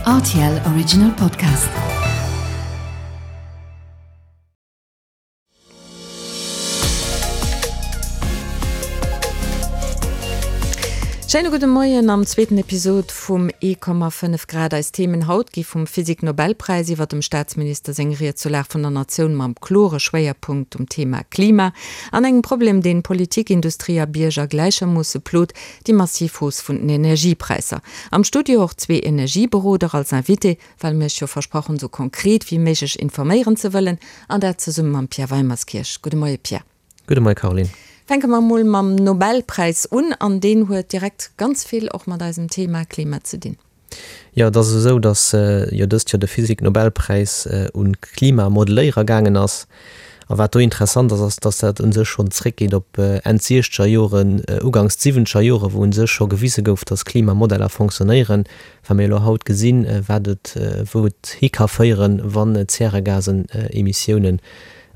Rtl Original Podcast. Schéine gudde Moien am zweeten Episod vum 1,5 Grad. Eis Themen haut gi vum Physik-Nobelpräis iwwer dem Staatsminister seng Ried zur Lag vun der Natioun mam klore Schwéierpunkt um Thema Klima an engem Problem, deen Politik, Industrie a Bierger gläichermoosse plot, déi massiv Hausse vun den Energiepräisser. Am Studio och zwee Energieberoder als Invité, well mir iech jo versprach hunn, esou konkret wéi méiglech informéieren ze wëllen, an dat zesumme mam Pierre Weimerskirch. Gudde Moie Pierre. Gudde Moie Caroline. Fänke mer emol mam Nobelpräis un, an deen huet direkt ganz vill och mat eisem Thema Klima ze dinn. Jo, et ass esou, datt jo dëst Joer de Physik-Nobelpräis un d'Klimamodelléierer gaangen ass. A wat do interessant ass, ass, datt dat u sech schonn zréckgeet op Enn d'siechzeger Joren, uganks d'siwwenzeger Joren, wou u sech scho gewise gouf, datt Klimamodeller fonctionnéieren. Wa mir elo haut gesinn, wat et, wou et hi ka féieren, wann Zäregasen-Emissiounen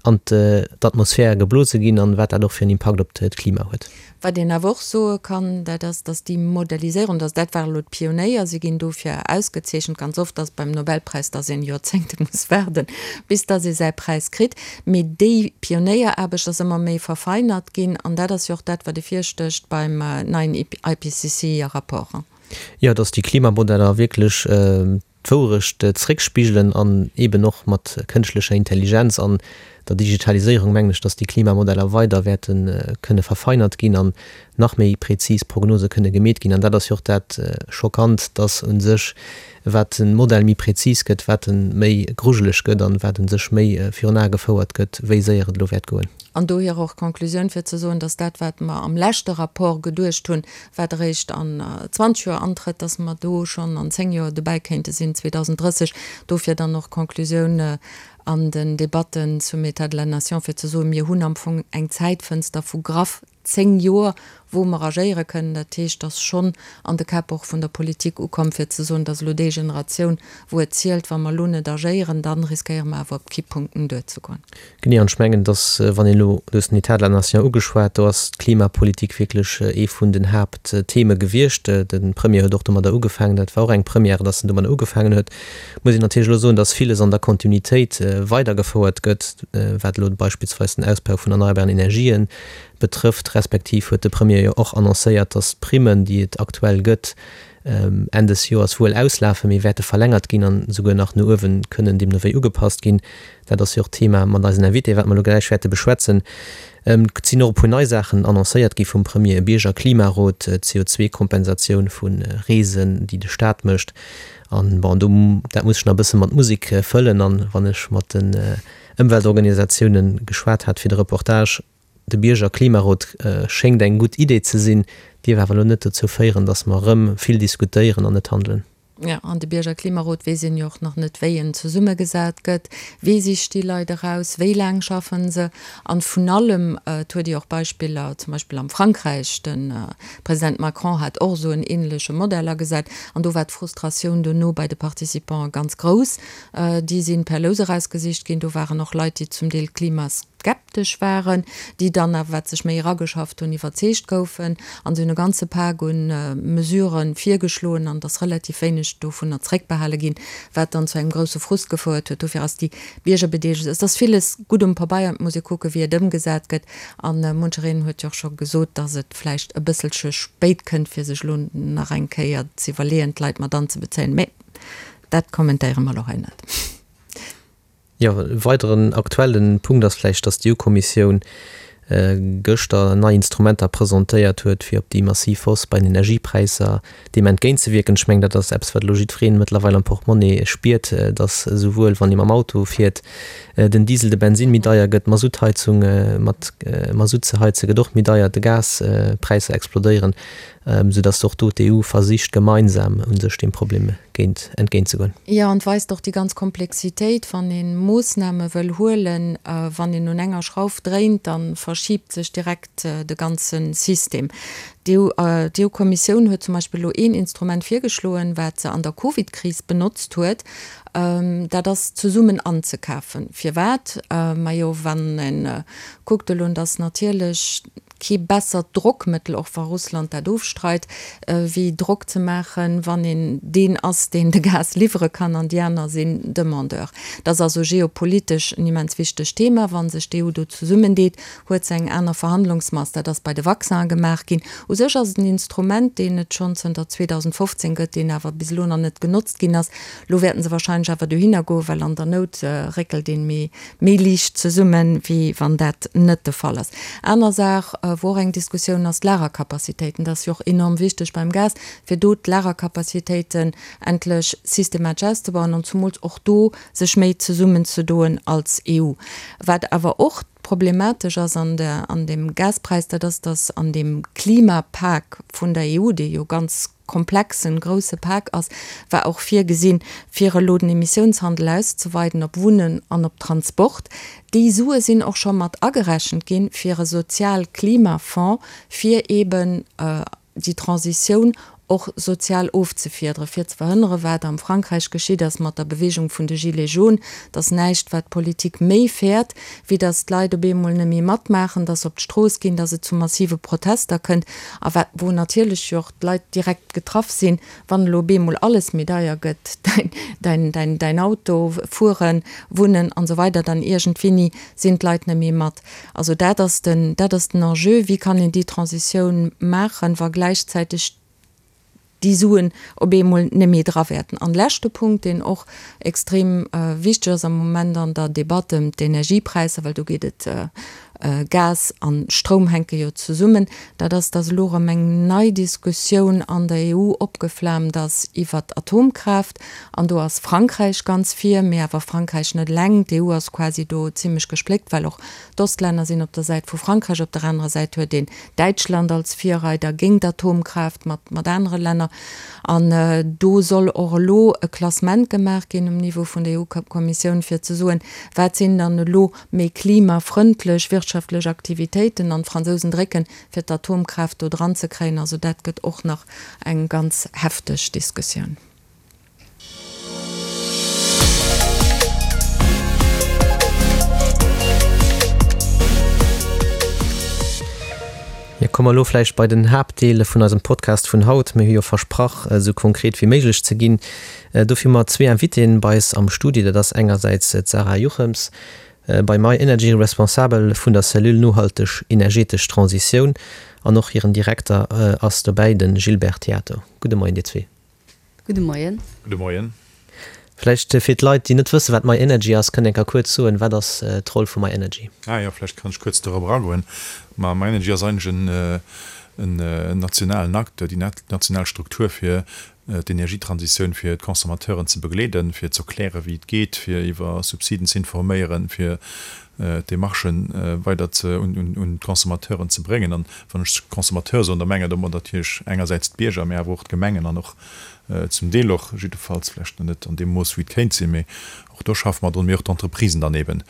an d'Atmosphär geblose ginn an wat dat och fir en Impakt op d'Klima huet. Wat een awer och soe kann, dat ass, dass déi Modelliséierung, dass dat ware elo d'Pionéier, si ginn dofir ausgezeechent, ganz oft ass et beim Nobelpräis, dass een Joerzéngte muss waarden, bis dass ee säi Präis kritt, mee déi Pionéieraarbecht ass ëmmer méi verfeinert ginn an dat ass jo och dat, wat ervirstécht beim neien IPCC-Rapport. Jo, dass déi Klimamodeller wierklech d'Wourecht zréckspigelen an eeben och mat kënschtlecher Intelligenz an der Digitaliséierung mengen ech, dass déi Klimamodeller weider wäerte kënne verfeinert ginn an nach méi prezis Prognose kënne gemeet ginn. An dat ass jo och dat Schockant, dass u sech, wat de Modell méi prezis gëtt, wat e méi grujeleg gëtt an wat u sech méi virun Ae gefouert gëtt, wéi séier et elo wäert goen. An dohier och d'Conclusioun fir ze soen, dass dat, wat mer am leschte Rapport geduecht hunn, wat eréischt an 20 Joer antrëtt, dass mer do schonn an 10 Joer dobäi kéinte sinn, 2030. Dofir dann och d'Conclusioun an den Debatten zum État de la nation, fir ze soen, mir hunn am Fong eng Zäitfënster vu graff 10 Joer, wou mer agéiere kënnen. Dat heescht, dass schonn an de Käpp och vun der Politik ukomm, fir ze soen, dass elo déi Generatioun, wou et zielt, wa mer elo net agéieren, da riskéiere mer awer op Kipppunkten duerzegoen. Genee, an ech mengen, dass, wann een elo, du hues den État de la nation ugeschwat, do ass d'Klimapolitik wierklech ee vun den Haapttheme gewiescht. De Premier huet och domadder ugefaangen, dat war och eng Première, dass en domadder ugefaangen huet. Muss een natierlech elo soen, dass villes an der Kontinuitéit weidergefouert gëtt, wat elo beispillsweis den Ausbau vun erneierbaren Energien betrëfft, respektiv huet de Premier jo och annoncéiert, dass d'Primmen, déi et aktuell gëtt, Enn des Joers wuel auslafen, mee wäerte verlängert ginn an esouguer nach no uewen kënnen deemno wéi ugepasst ginn. Dat ass jo och d'Thema mat eisen Invité, wat mer elo gläich wäerte beschwätzen. Et sinn och e puer nei Saachen annoncéiert gi vum Premier, e Biergerklimarot, d'CO2-Kompensatioun vu Reesen, déi de Staat mécht. An bon, do, dat muss ech nach e bësse mat Musek fëllen. An wann ech mat den Ëmweltorganisatiounen geschwat hat fir de Reportage, De Biergerklimarot schéngt eng gutt Idee ze sinn, dierf awer elo net dozou féieren, datt mer erëm vill diskutéieren an net handelen. Jo, an de Biergerklimarot weess een jo och nach net, wéi en zesummegesat gëtt. Wee sicht déi Leit eraus? Wéi laang schaffen se? An vun allem, et huet ee och Beispiller, zum Beispill am Frankräich, de President Macron hat och esou en ähnleche Modell agesat, an do war d'Frustratioun dono bei de Participante ganz grouss. Déi si per Lous erausgesicht ginn. Do waren och Leit, déi zum Deel klimas. Skeptesch waren, déi dann awer, wat sech méi erageschafft hunn, iwwerzeegt goufen. An se hunn e ganze Pak u Mesurë virgeschloen an et ass relativ wéineg dovunner zréckbehale ginn, wat dann zu engem grousse Frust gefouert huet. Dofir ass déi Biergerbedeelegung, et ass villes gutt um Pabeier, et muss ee kucken, wéi et ëmgesat gëtt. A munchereen huet jo och scho gesot, datt et vläicht e bësselche spéit kënnt, fir sech elo nach eng Kéier ze iwwerleeën, d'Leit mat anzebezéien. Mä dat kommentéiere mer elo hei net. Jo, e weideren aktuellen Punkt ass vläicht, dass d'EU-Kommissioun gëschter nei Instrumenter presentéiert huet, fir op déi massiv Hausse bei den Energiepräisser deem entgéintzewierken. Ech mengen, dat ass eppes, wat elo jiddwereen mëttlerweil am Portemonnaie spiert, dass esouwuel, wann ee mam Auto fiert, den Diesel, de Bensinn méi deier gëtt, d'Masuttheizung mat Masutt ze heize gëtt och méi deier, de Gaspräisser explodéieren. Sou datt och do d'EU versicht gemeinsam u sech deem Problem géint entgéintzegoen. Jo, an et weist och déi ganz Komplexitéit, wann ee Moossname wëll huelen, wann een un enger Schrauf dréint, da verschiibt sech direkt de ganze System. D'EU-Kommissioun huet zum Beispill elo een Instrument virgeschloen, wat se an der Covid-Kris benotzt huet, dat ass zesummen anzekafen. Firwat? Majo, wann ee kuckt elo, datt natierlech kee bessert Drockmëttel, och wa Russland dat ofstreit, wéi Drock ze maachen, wann een deen ass, deen de Gas liwwere kann an déi aner sinn Demandeur. Dat ass also geopolitesch en immens wichtegt Thema. Wa sech d'EU do zesummendeet, huet se eng aner Verhandlungsmass. Dat ass bei de Vaccinen gemaach ginn. U sech ass et en Instrument, deen et schonn zënter 2015 gëtt, deen awer bis elo nach net genotzt ginn ass. Elo wäerten se wahrscheinlech awer dohinner goen, well an der Nout réckelt een méi méi liicht zesummen, wéi wann dat net de Fall ass. Aner Saach, wou och eng Diskussioun ass, d'Lagercapacitéiten. Dat ass jo och enorm wichteg beim Gas, fir do d'Lagercapacitéiten endlech systematesch auszebauen an zumools och do sech méi zesummenzedoen als EU. Wat awer och problematesch ass an der, an deem Gaspräis, dat ass, datt an deem Klimapak vun der EU, dee jo ganz komplexen, grousse Pak ass, war och virgesinn, fir elo den Emissiounshandel auszeweiden op Wunnen an op Transport. Déi Sue sinn och scho mat agerechent ginn, fir e Sozial-Klimafonds, fir eeben déi Transitioun och sozial ofzefiederen, fir ze verhënneren, wat am Frankräich geschitt ass mat der Bewegung vun de Gilets jaunes, dass näischt, wat d'Politik méi fäert, wéi dass d'Leit op eemol net méi matmaachen, dass se op d'Strooss ginn, dass et zu massive Protester kënnt a wat, wou natierlech jo och d'Leit direkt getraff sinn, wann elo op eemol alles méi deier gëtt, däin, däin, däin Auto, Fueren, Wunnen an esou weider, dann iergendwéini sinn d'Leit net méi mat. Also dat ass den, dat ass den Enjeu, Wéi kann een déi Transitioun maachen, wa gläichzäiteg déi Suen op eemol net méi dra wäerten? An leschte Punkt, deen och extrem wichteg ass am Moment an der Debatt ëm d'Energiepräisser, well do geet et, Gas a Stroum hänke jo zesummen, dat ass, datt elo erëm eng nei Diskussioun an der EU opgeflaamt ass iwwert d'Atomkraaft. An do ass Frankräich ganz vir, mee awer Frankräich net eleng. D'EU ass quasi do zimlech gespléckt, well och d'Ostlänner sinn op der Säit vu Frankräich. Op der anerer Säit huet een Däitschland als Virreider géint Atomkraaft mat mat anere Länner. An do soll och elo e Klassement gemaach ginn um Niveau vun der EU-Kommissioun, fir ze soen, wat sinn dann elo méi klimafrëndlech wirtschaftlech Aktivitéiten. An d'Fransousen drécken, fir d'Atomkraaft do dran ze kréien. Also dat gëtt och nach eng ganz hefteg Diskussioun. Jo, komme mer elo vläicht bei den Haaptdeel vun eisem Podcast vun haut. Mir hu jo versprach, esou konkret wéi méiglech ze ginn. Dofir hu mer zwee Invitéen bei eis am Studio. Dat ass engersäits d'Sarah Juchems, bei myenergy Responsabel vun der Cellule nohalteg energetesch Transitioun, an och hiren Direkter ass dobäi, de Gilbert Theato. Gudde Moien, dir zwee. Gudde Moien. Gudde Moien. Vläicht fir d'Leit, déi net wëssen, wat myenergy ass, kënnt Dir eng Kéier kuerz soen, wat ass d'Roll vu myenergy? Ah jo, vläicht kann ech kuerz dorop eragoen. Ma myenergy ass eigentlech en nationalen Acteur, déi national Struktur fir d'Energietransitioun fir d'Consommateuren ze begleeden, fir ze erklären, wéi et geet, fir iwwer Subsiden ze informéieren, fir d'Demarchen weider ze un d'Consommateuren ze bréngen. An wann ech Consommateur soen, da menge domat natierlech engersäits d'Bierger, mä awer och d'Gemengen an och zum Deel och, jiddefalls vlächtt net an deem Mooss wéi et kéint sinn, mä och do schaffe mer drun, mä och d'Entreprisen dann eben.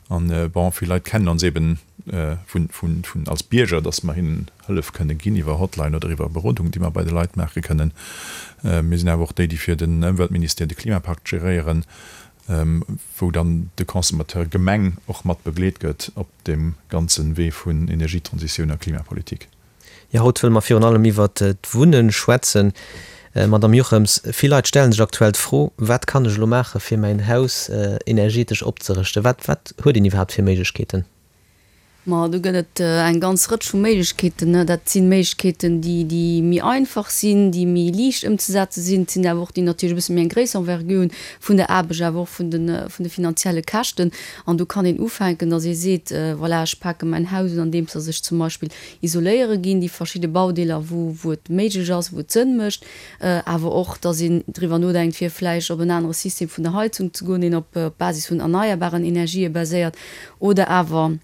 An, bon, vill Leit kennen ons eben vun, vun, vun als Bierger, dass mer hinnen Hëllef kënne ginn iwwer Hotline oder iwwer Berodung, déi mer bei de Leit maache kënnen. Mir sinn awer och déi, déi fir den Ëmweltministère de Klimapakt geréieren. wou dann de Consommateur Gemeng och mat begleet gëtt op deem ganze Wee vun Energietransitioun a Klimapolitik. Jo, haut wëlle mer virun allem iwwert d'Wunnen schwätzen. Madamm Jochems, vill Leit stellen sech aktuell d'Fro, Wat kann ech elo maache fir mäin Haus energetesch opzerëschten? Wat wat huet een iwwerhaapt fir Méiglechkeeten? Ma do gëtt et eng ganz Rëtsch vu Méiglechkeeten. Dat si Méiglechkeeten, déi, déi méi einfach sinn, déi méi liicht ëmzesetze sinn. Et sinn awer och déi natierlech e bësse méi eng gréisser Envergure hunn vun der Aarbecht, awer och vun de, vun de finanzielle Käschten. An do kann een ufänken, datt ee seet, voilà, ech pake mäin Haus un, andeems datt ech zum Beispill isoléiere ginn, déi verschidde Baudeeler, wou, wou et méiglech ass, wou et Sënn mécht. Awer och, datt een driwwer nodenkt, fir vläicht op en anere System vun der Heizung ze goen, deen op Basis vun erneierbaren Energië baséiert. Oder awer.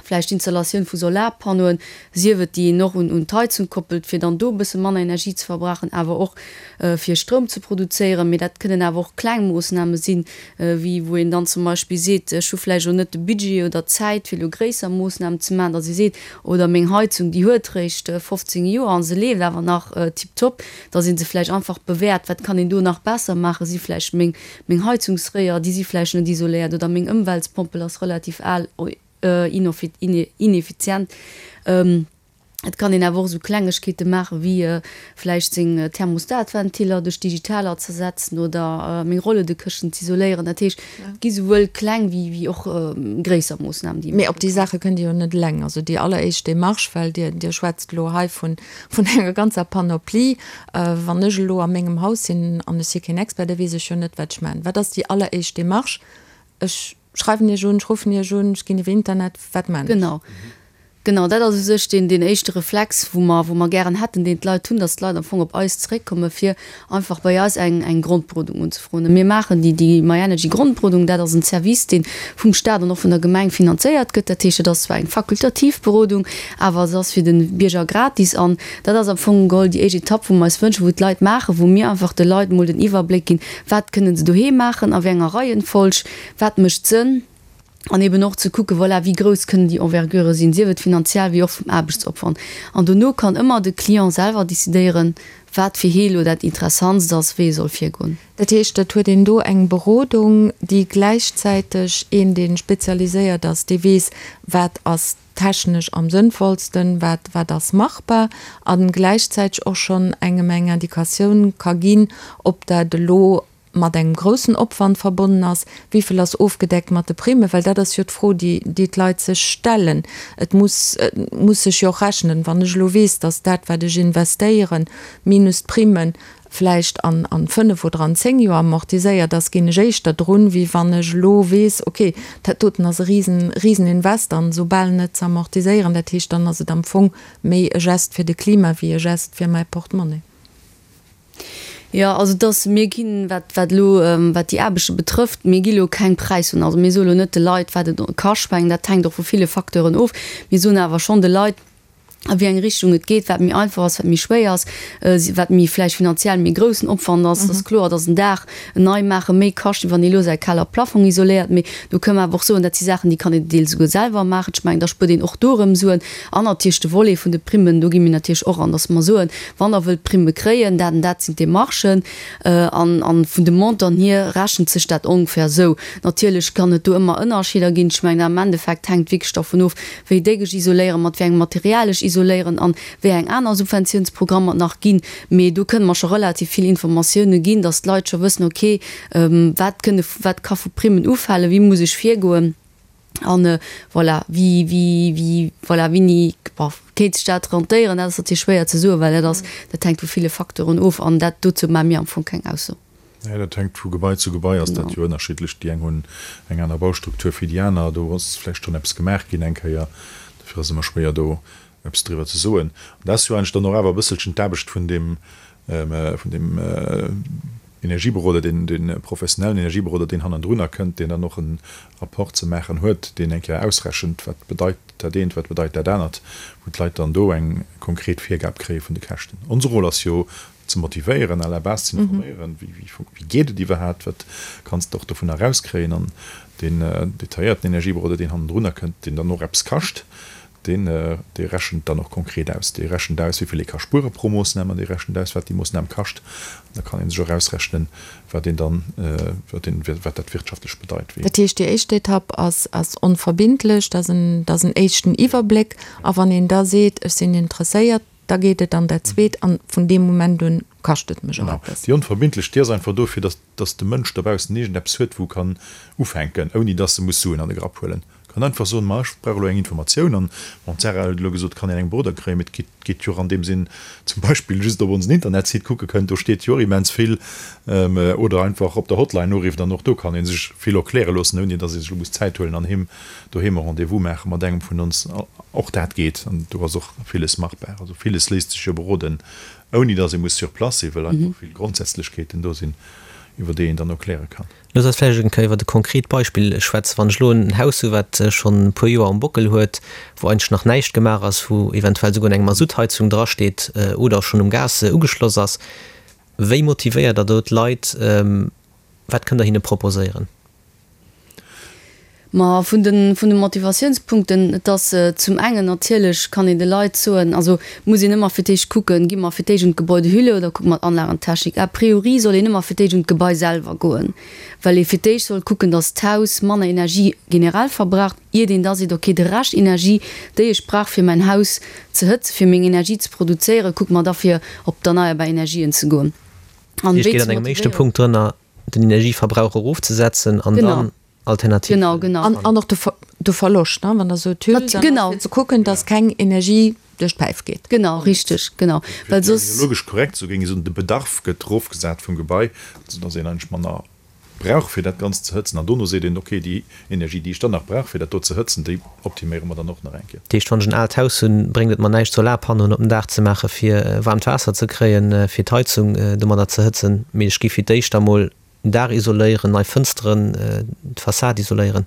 Vläicht d'Installatioun vu Solarpannoen, sief et déi een och un d'Heizung koppelt, fir dann do e bësse manner Energie ze verbrauchen, awer och fir Stroum ze produzéieren. Mee dat kënnen awer och kleng Moossname sinn, wéi wou een dann zum Beispill seet, ech hu vläicht elo net de Budget oder d'Zäit, fir elo gréisser Moossnamen ze maachen, datt ee seet, oder meng Heizung, déi huet réischt 15 Joer a se leeft awer nach tiptop, datt ee se vläicht einfach bewäert, wat kann een do nach besser maachen, si vläicht meng Meng Heizungsréier, déi si vläicht net isoléiert oder meng Ëmweltspompel ass relativ al, ineffizient. Et kann een awer och esou Klengegkeete maache wéi vläicht seng Thermostatventiller duerch digitaler ze ersetzen oder meng Rolledekëschten z'isoléieren. Dat heescht, et gi souwuel kleng wéi och gréisser Moossnamen, déi ee Mee op déi Saache kënnt Dir jo net eleng. Also déi alleréischt Demarche, well Dir, Dir schwätzt elo hei vun enger ganzer Panoplie, Wann ech elo a mengem Haus sinn an ech si keen Expert, da weess ech jo net, wat ech maachen. Wat ass déi alleréischt Demarche? Ech schreiwen Iech un, ech ruffen Iech un, ech ginn iwwer Internet, wat maachen ech? Genau. Genau, dat ass u sech deen, deen éischte Reflex, wou mer, wou mer gären hätten, deen d'Leit hunn, dass d'Leit am Fong op eis zeréckkomme fir einfach bei eis eng, eng Grondberodung unzefroen. Mir maachen déi, déi myenergy Grondberodung, dat ass en Service, dee vum Staat an och vun der Gemeng finanzéiert gëtt. Dat heescht, et ass zwar eng fakultativ Berodung, awer se ass fir de Bierger gratis an Dat ass am Fong geholl déi éischt Etapp, wou mer eis wënschen, wou d'Leit maachen, wou mir einfach de Leit emol den Iwwerbléck ginn, wat kënnen se doheem maachen, a wéi enger Reihenfolg, wat mécht Sënn, an eben och ze kucken, voilà, wéi grouss kënnen déi Envergurë sinn, sief et finanziell wéi och vum Aarbechtsopwand. An dono kann ëmmer de Client selwer decidéieren, wat fir hee elo dat Interessantst ass, wéi e soll virgoen. Dat heescht, et huet een do eng Berodung, déi gläichzäiteg een, dee spezialiséiert ass, dee weess, wat ass technesch am sënnvollsten, wat, wat ass machbar, a gläichzäiteg och schonn engem eng Indikatioun ka ginn, ob dat elo mat engem groussen Opwand verbonnen ass, wéi vill ass ofgedeckt mat de Primen, well dat ass jo d'Fro, déi, déi d'Leit sech stellen. Et muss, et muss sech jo och rechnen. Wann ech elo weess, datt dat, wat ech investéieren, minus d'Primen, vläicht an an 5 oder an 10 Joer amortiséiert ass, ginn ech éischter drun, wéi wann ech elo weess, ok, dat doten ass e risen, risen Invest an esoubal net ze amortiséieren. Dat heescht, dann ass et am Fong méi e Gest fir de Klima wéi e Gest fir mäi Portemonnaie. Jo, also et ass, mir ginn, wat, wat elo, wat déi Aarbechte betrëfft, mir gi elo keng Präis un. Also mir soe lo net de Leit, wat et kascht, mengen dat hänkt och vu ville Facteuren of. Mir soen awer schonn de Leit, a wéi eng Richtung et geet, wat méi einfach ass, wat méi schwéier ass, wat méi vläicht finanziell méi groussen Opwand ass. Et ass kloer, datt en Daach nei maache méi kascht, wéi wann ee elo säi Keller Plafong isoléiert. Mee do kënnen mer awer och soen, dat si Saachen, déi kann een deels esouguer selwer maachen. Ech mengen, da spuert een och do erëm Suen. An natierlech de Volet vun de Primmen, do gi mir natierlech och an, datt mer soen, wann Der wëllt Primme kréien, dat an dat sinn d'Demarchen. An vun de Montanten hier rechent sech dat ongeféier esou. Natierlech kann et do ëmmer Ënnerscheeder ginn. Ech mengen, am Endeffekt hänkt wierklech dervun of, wéi déck ech isoléieren, mat wéi engem Material ech isoléieren an wéi eng aner Subventiounsprogrammer et nach ginn. Mee do kënne mer scho relativ vill Informatioune ginn, dass d'Leit scho wëssen, ok, wat kënne, wat ka vu Primmen ufalen, wéi muss ech virgoen an voilà, wéi, wéi, wéi, voilà, wéini, bon, kéint sech dat rentéieren. Dat ass natierlech schwéier ze soen, well dat ass, dat hänkt vu ville Facteuren of an dat, dozou maache mir am Fong keng Ausso. Nee, dat hänkt vu Gebai zu Gebai ass dat jo ënnerschiddlech. Déi eng hunn eng aner Baustruktur wéi déi aner. Do ass vläicht schonn eppes gemaach ginn eng Kéier. Dofir ass et ëmmer schwéier do eppes driwwer ze soen. An dat ass jo eigentlech dann och awer e bësselchen d'Aarbecht vun deem, vun deem Energieberoder, deen, dee professionellen Energieberoder, deen hannendrunner kënnt, deen dann och e Rapport ze maachen huet, deen eng Kéier ausrechent, wat bedeit dat eent, wat bedeit dat anert, wou d'Leit dann do eng konkret Virgab kréie vun de Käschten. Onse Rôle ass jo ze motivéieren, à la base ze informéieren, wéi geet et iwwerhaapt, wat kanns de och dovunner erauskréien an deen detailléierten Energieberoder, deen hannendrunner kënnt, deen dann och eppes kascht, deen, dee rechent dann och konkret aus. Dee rechent aus, wéi vill ee ka spuere pro Moossnam an dee rechent aus, wat déi Moossnam kascht. An da kann ee sech och ausrechnen, wat een dann, wat een, wat dat wirtschaftlech bedeit. Dat heescht, déi éischt Etapp ass, ass onverbindlech, dat ass en, dat ass en éischten Iwwerbléck. A wann een da seet, ech sinn interesséiert, Da geet et an dat zweet an vun deem Moment un kascht et mech och eppes. Déi onverbindlech, déi ass einfach dofir, dass dass de Mënsch dobaussen iergendeppes huet, wou e kann ufänken, ouni dass e muss Suen an de Grapp huelen. E kann einfach soen, ma ech brauch elo eng Informatioun an, bon, d'Sarah huet elo gesot, kann een eng Beroder kréien, mee et geet geet jo och an deem Sinn zum Beispill just op onsen Internetsite kucke kënnt, do steet jo och immens vill, oder einfach op der Hotline urifft an och do kann ee sech vill erkläre loossen, ouni dass ee sech elo muss Zäit huelen an heem doheem e Rendez-vous maache mat engem vun ons. Och dat geet an do ass och villes machbar. Also villes léisst sech jo beroden, ouni datt ee muss sur place sinn, well einfach vill Grondsätzlechkeeten do sinn. iwwer déi een dann erkläre kann. Looss eis vläicht eng Kéier iwwert e konkret Beispill schwätzen. Wann ech elo en Haus hu wat schonn e puer Joer um Bockel huet, wou eigentlech nach näischt gemaach ass, wou eventuell souguer eng Masuttheizung drasteet oder schonn um Gas ugeschloss ass, wéi motivéiert Der do d'Leit? Wat kënnt Der hinne proposéieren? Ma vun de vun de Motivatiounspunkten, et ass zum engen natierlech kann een de Leit soen, also muss een ëmmer fir d'éischt kucken, gi mer fir d'éischt un d'Gebäudehülle oder kucke mer d'Anlagentechnik. A priori soll een ëmmer fir d'éischt un d'Gebai selwer goen, well ee fir d'éischt soll kucken, datt d'Haus manner Energie generell verbraucht, iert een da seet, okay, de Rescht Energie, déi ech brauch fir mäin Haus ze hëtzen, fir meng Energie ze produzéieren, kucke mer da fir op d'erneierbar Energien ze goen. An wéi geet an engem éischte Punkt drënner, den Energieverbrauch erofzesetzen an dann Alternativen. Genau, genau. An, an och de, de Verloscht, ne? Wann Der sot Hüll, dann genau. ass fir ze kucken, dass keng Energie duerch d'Päif geet. Genau, richteg, genau. Well soss. Terminologesch korrekt, sou géing ech soen, de Bedarf gëtt erofgesat vum Gebai, soudass een eigentlech manner brauch, fir dat Ganzt ze hëtzen. An dono seet een, okay, déi Energie, déi ech dann nach brauch, fir dat do ze hëtzen, déi optiméiere mer dann och nach eng Kéier. Dat heescht, wann ech en aalt Haus hunn, bréngt et mer näischt, Solarpannoen op den Daach ze maachen, fir waarmt Waasser ze kréien, fir d'Heizung domadder ze hëtzen, mee ech gi fir d'éischt emol Den Daach isoléieren, nei Fënsteren, d'Fassad isoléieren.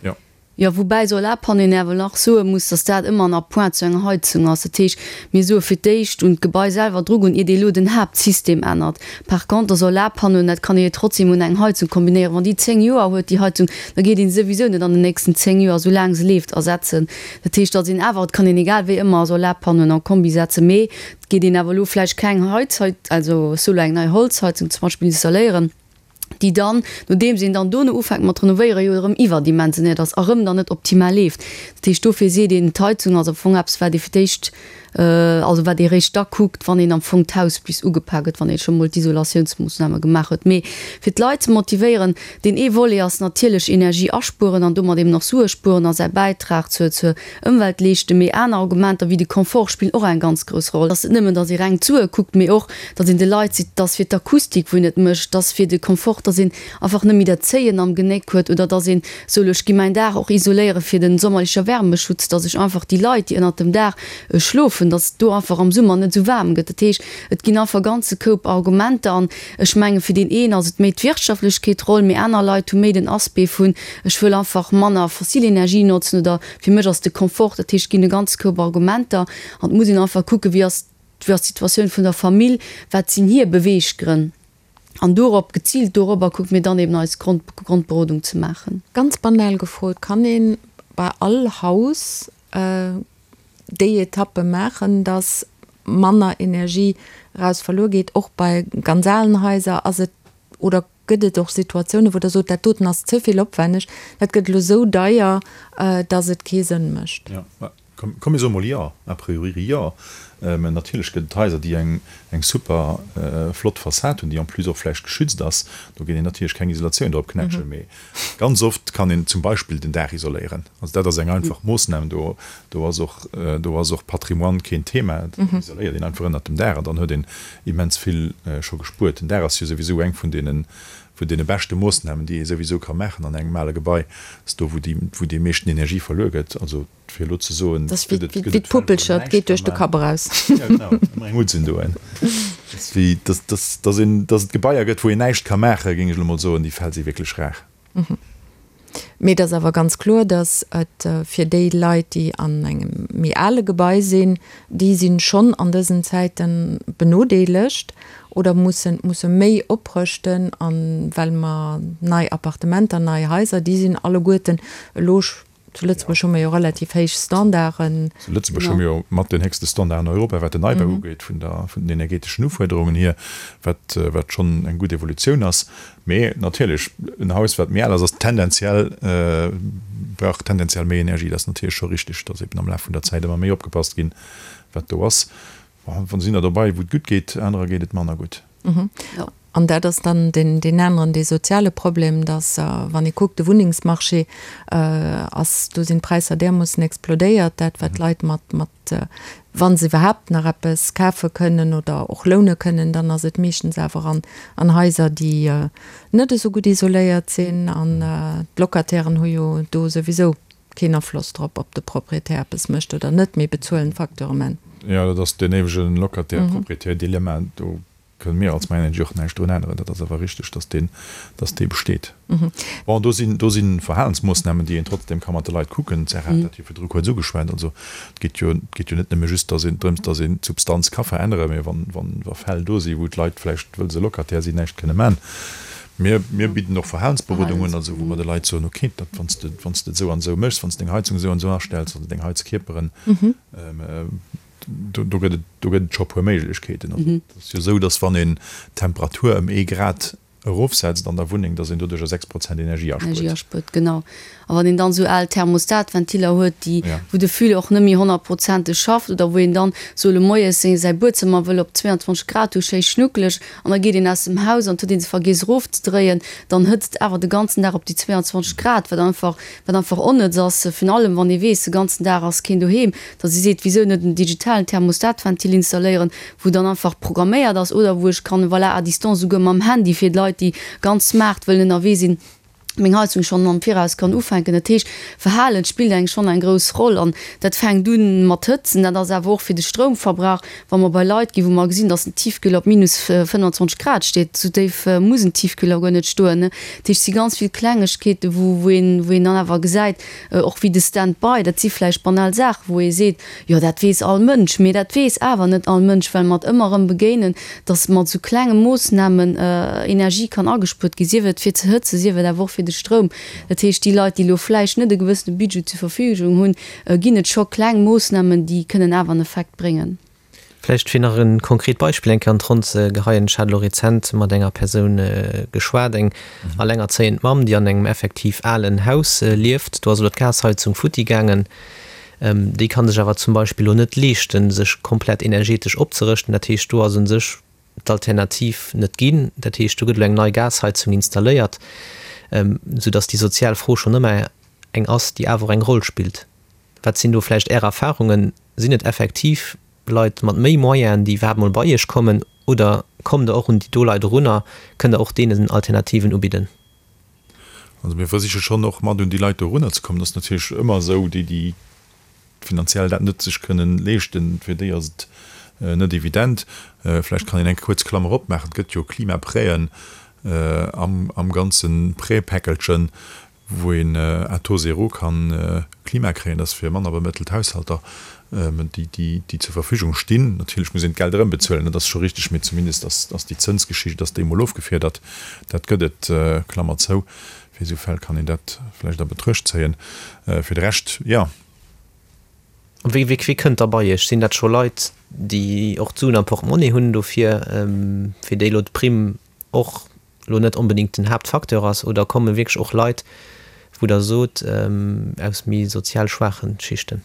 Jo. Jo, woubäi Solarpanneauen awer nach soe muss, dass dat ëmmer en Appoint zu enger Heizung ass. Dat heescht, mir soe fir d'éischt un d'Gebai selwer drugoen, iert ee elo den Haaptsystem ännert. Par contre Solarpanneauen, dat kann ee jo trotzdem un eng Heizung kombinéieren. Wann déi 10 Joer huet, déi Heizung, da geet een se souwisou net an den nächsten 10 Joer, esou laang se leeft, ersetzen. Dat heescht, datt een awer, et kann een egal wéi ëmmer Solarpanneauen en Kombi setzen, mee Geet een awer elo vläicht keng Heizheit, also solo eng nei Holzheizung zum Beispill installéieren, déi dann, nodeems een dann dono ufänkt mat renovéieren, jo erëm iwwerdimensionéiert ass a rëm dann net optimal leeft. Dat heescht, dofir seet een, d'Heizung ass am Fong eppes, wat ee fir d'éischt, also wat ee réischt da kuckt, wann een am Fong d'Haus bis ugepak huet, wann ee scho mol d'Isolatiounsmoossname gemaach huet. Mee fir d'Leit ze motivéieren, deen ee Volet ass natierlech Energie aspueren an domat eben och Sue spueren a säi Bäitrag zur, zur Ëmwelt leeschten, mee aner Argumenter wéi de Confort spillen och eng ganz grouss Roll. Dass et nëmmen, dass ee reng d'Sue kuckt, mee och, dass een de Leit seet, dass fir d'Akustik, wou een et mécht, dass fir de Confort, dass een einfach net méi dat Zéien am Genéck huet oder dass een soll, ech gi mäin Daach och isoléiere fir den sommerlecher Wärmeschutz, dass ech einfach déi Leit, déi ënnert dem Daach schlofen, dass do einfach am Summer net esou waarm gëtt. Dat heescht, et ginn einfach e ganze Koup Argumenter an ech menge fir deen een ass et méi d'Wirtschaftlechkeet Roll, mee aner Leit hu méi den Aspect vun, ech wëll einfach manner fossil Energie notzen oder fir mech ass de Confort, dat heescht, et ginn e ganze Koup Argumenter an et muss een einfach kucken, wéi ass wéi ass d'Situatioun vun der Famill, wat sinn hir Beweeggrënn an dorop, geziilt dorobber kucke mir dann eben eis Grond Grondberodung ze maachen. Ganz banal gefrot, kann ee bei all Haus déi Etappe maachen, dass manner Energie eraus verluer geet, och bei ganz alen Haiser? Ass et oder Gëtt et och Situatiounen, wou Der sot, dat doten ass ze vill opwenneg, dat gëtt elo esou deier, datt et kee Sënn mécht? Jo, komm mir soe mol jo, a priori jo. Mä natierlech gëtt et Haiser, déi eng super flott Fassad hunn, déi en plus och vläicht geschützt ass. Do geet een natierlech keng Isolatioun drop knätschen. Mee ganz oft kann een zum Beispill den Daach isoléieren. Also dat ass eng einfach Moossnam. Do ass och, do ass och Patrimoine keen Thema. Do isoléiert een einfach ënnert dem Daach an dann huet een immens vill scho gespuert. Den Daach ass jo souwisou eng vun deene, vun deene beschte Moossnamen, déi ee souwisou ka maachen an engem ale Gebai. Dat ass do, wou déi, wou déi meeschten Energie verluer gëtt. Also fir elo ze soen, Dat ass wéi, gëtt et, gëtt et Fäll, wou een näischt geet duerch de Kapp eraus. Ja, genau, ëmmer eng unzendoen. Dat ass wéi, dass, dass, dass een, dass et Gebaier gëtt, wou een näischt ka maachen, géing ech elo mol soen, déi Fäll si wierklech rar. Mee et ass awer ganz kloer, datt et fir déi Leit, déi an engem méi ale Gebai sinn, déi si schonn an dësen Zäite benodeelegt oder mussen, musse méi oprëschten. A well mer nei Appartementer, nei Haiser, déi sinn alleguerten elo Zu Lëtzebuerg hu mer jo relativ héich Standarden. Zu Lëtzebuerg hu mir jo mat den héchste Standarden an Europa, wat den Neibau ugeet, vun der, vun den energeteschen Ufuerderungen hier, wat, wat schonn eng gutt Evolutioun ass. Mee natierlech, en Haus, wat méi al ass, ass tendenziell, brauch tendenziell méi Energie. Dat ass natierlech scho richtig, dass eben am Laf vun der Zäit ëmmer méi opgepasst ginn, wat do ass. Bon, sinn der dobei, wou et gutt geet, anerer geet et manner gutt. An dat ass dann deen aneren, dee soziale Problem, dass, wann ee kuckt, de Wunnengsmarché ass, do sinn d'Präisser därmoossen explodéiert, dat wat d'Leit mat, mat, wa se iwwerhaapt nach eppes kafe kënnen oder och loune kënnen, dann ass et meeschtens awer an, an Haiser, déi net esou gutt isoléiert sinn. An d'Locatairen hu jo do souwisou keen Afloss drop, ob de Proprietär eppes mécht oder net, mee bezuelen d'Facture um Enn. Jo, dat ass deen éiwege Locataire-Proprietär-Dilemma. Do. Kënne mir als myenergy och näischt drun änneren. Dat ass awer richteg, dass deen, dass dee besteet. Bon, do sinn, do si Verhalensmoossnamen, déi een trotzdem ka mat de Leit kucken. D'Sarah hat dat jo virdru kuerz ugeschwat. Also et geet jo, et geet jo net nëmme just, dass een, drëms, dass een d'Substanz ka veränneren, mä wann, wann, wa Fäll do si wou d'Leit vläicht, wëll se Locataire sinn, näischt kënne man. Mir, mir bidden och Verhalensberodung un, also wou mer de Leit soen, okay, dat, wann s de, wann s de et esou an esou méchs, wann s de deng Heizung esou an esou astells oder deng Heizkierperen, Do, do gëtt et, do gëtt et scho e puer Méiglechkeeten. Also et ass jo esou, datt wann een d'Temperatur ëm ee Grad erofsetzt an der Wunneng, datt een doduercher 6 Prozent Energie aspuert. Energie aspuert, genau. A wann een dann esou al Thermostatventiller huet, déi, wou de Füller och net méi honnertprozenteg schafft oder wou een dann sou moies seng, säi Buedzëmmer wëll op 22 Grad hu, schéi schnuckeleg, an da geet een aus dem Haus an et huet ee se vergiess erofzedréien, dann hëtzt et awer de ganzen Dag op déi 22 Grad, wat einfach, wat einfach onnëtz ass, virun allem wann ee weess, de ganzen Dag ass keen doheem. Datt ee seet, wisou net en digitalen Thermostatventil installéieren, wou dann einfach programméiert ass oder wou ech kann, voilà, à distance esouguer mam Handy, fir d'Leit, déi ganz smart wëllen ënnerwee sinn, meng Heizung schonn am Viraus kann ufänken. Dat heescht, Verhalen spillt eng schonn eng grouss Roll an dat fänkt u mat Hëtzen, dat ass awer och fir de Stroumverbrauch, wa mer bei Leit ginn, wou mer gesinn, datt en Tiefkühler op minus 25 Grad steet, esou déif muss en Tiefkühler guer net stoen. Dat heescht, et si ganz vill Klengegkeeten, wou wou een wou een dann awer gesäit, Och wéi de Stand-by, dat si vläicht banal Saachen, wou ee seet, jo dat weess all Mënsch, mee dat weess awer net all Mënsch, well mer et ëmmer erëm begéinen, datt mat esou klenge Moossnamen Energie kann agespuert ginn, sief et fir ze hëtzen, sief et awer och fir de Stroum. Dat heescht, déi Leit, déi elo vläicht net e gewëssene Budget zur Verfügung hunn, ginn et scho kleng Moossnamen, déi kënnen awer en Effekt bréngen. Vläicht fir nach e konkret Beispill eng Kéier an d'Ronn ze geheien, Ech hat elo rezent mat enger Persoun geschwat, eng allengerzéiend Mamm, déi an engem effektiv alen Haus lieft. Do ass elo d'Gasheizung futti gaangen. Déi ka sech awer zum Beispill elo net leeschten, sech komplett energetesch opzerëschten. Dat heescht, do ass u sech d'Alternativ net ginn. Dat heescht, do gëtt elo eng nei Gasheizung installéiert, soudass déi sozial Fro schonn ëmmer eng ass, déi awer och eng Roll spillt. Wat sinn do vläicht Är Erfahrungen? Sinn et effektiv Leit mat méi Moyenen, déi iwwerhaapt mol bei Iech kommen, oder kommt Der och un déi do Leit erun a kënnt Der och deenen Alternativen ubidden? Also mir versiche schonn och mat un déi Leit do erunner ze kommen. Et ass natierlech ëmmer esou, déi, déi finanziell dat net sech kënnen leeschten, fir déi ass et net evident. Vläicht kann een eng kuerz Klammer opmaachen, Et gëtt jo Klimaprêten am ganze Prêtpäckelchen, wou een à taux zéro kann Klima kréien, dat ass fir manner bemëttelt Haushalter, déi déi zur Verfügung stinn. Natierlech muss een d'Geld erëmbezuelen, dat ass scho richteg, mee zumindest ass ass déi Zënsgeschicht ass déi emol ofgefiedert. Dat gëtt et, Klammer zou. Fir esou Fäll kann een dat vläicht a Betruecht zéien. Fir de Rescht, jo. Wéi wéi kënnt da bei Iech? Sinn dat scho Leit, déi och d'Suen am Portemonnaie hunn dofir, fir déi elo d'Primm och elo net onbedéngt den Haaptfacteur ass, oder komme wierklech och Leit, wou Der sot, aus méi sozial schwaache Schichten?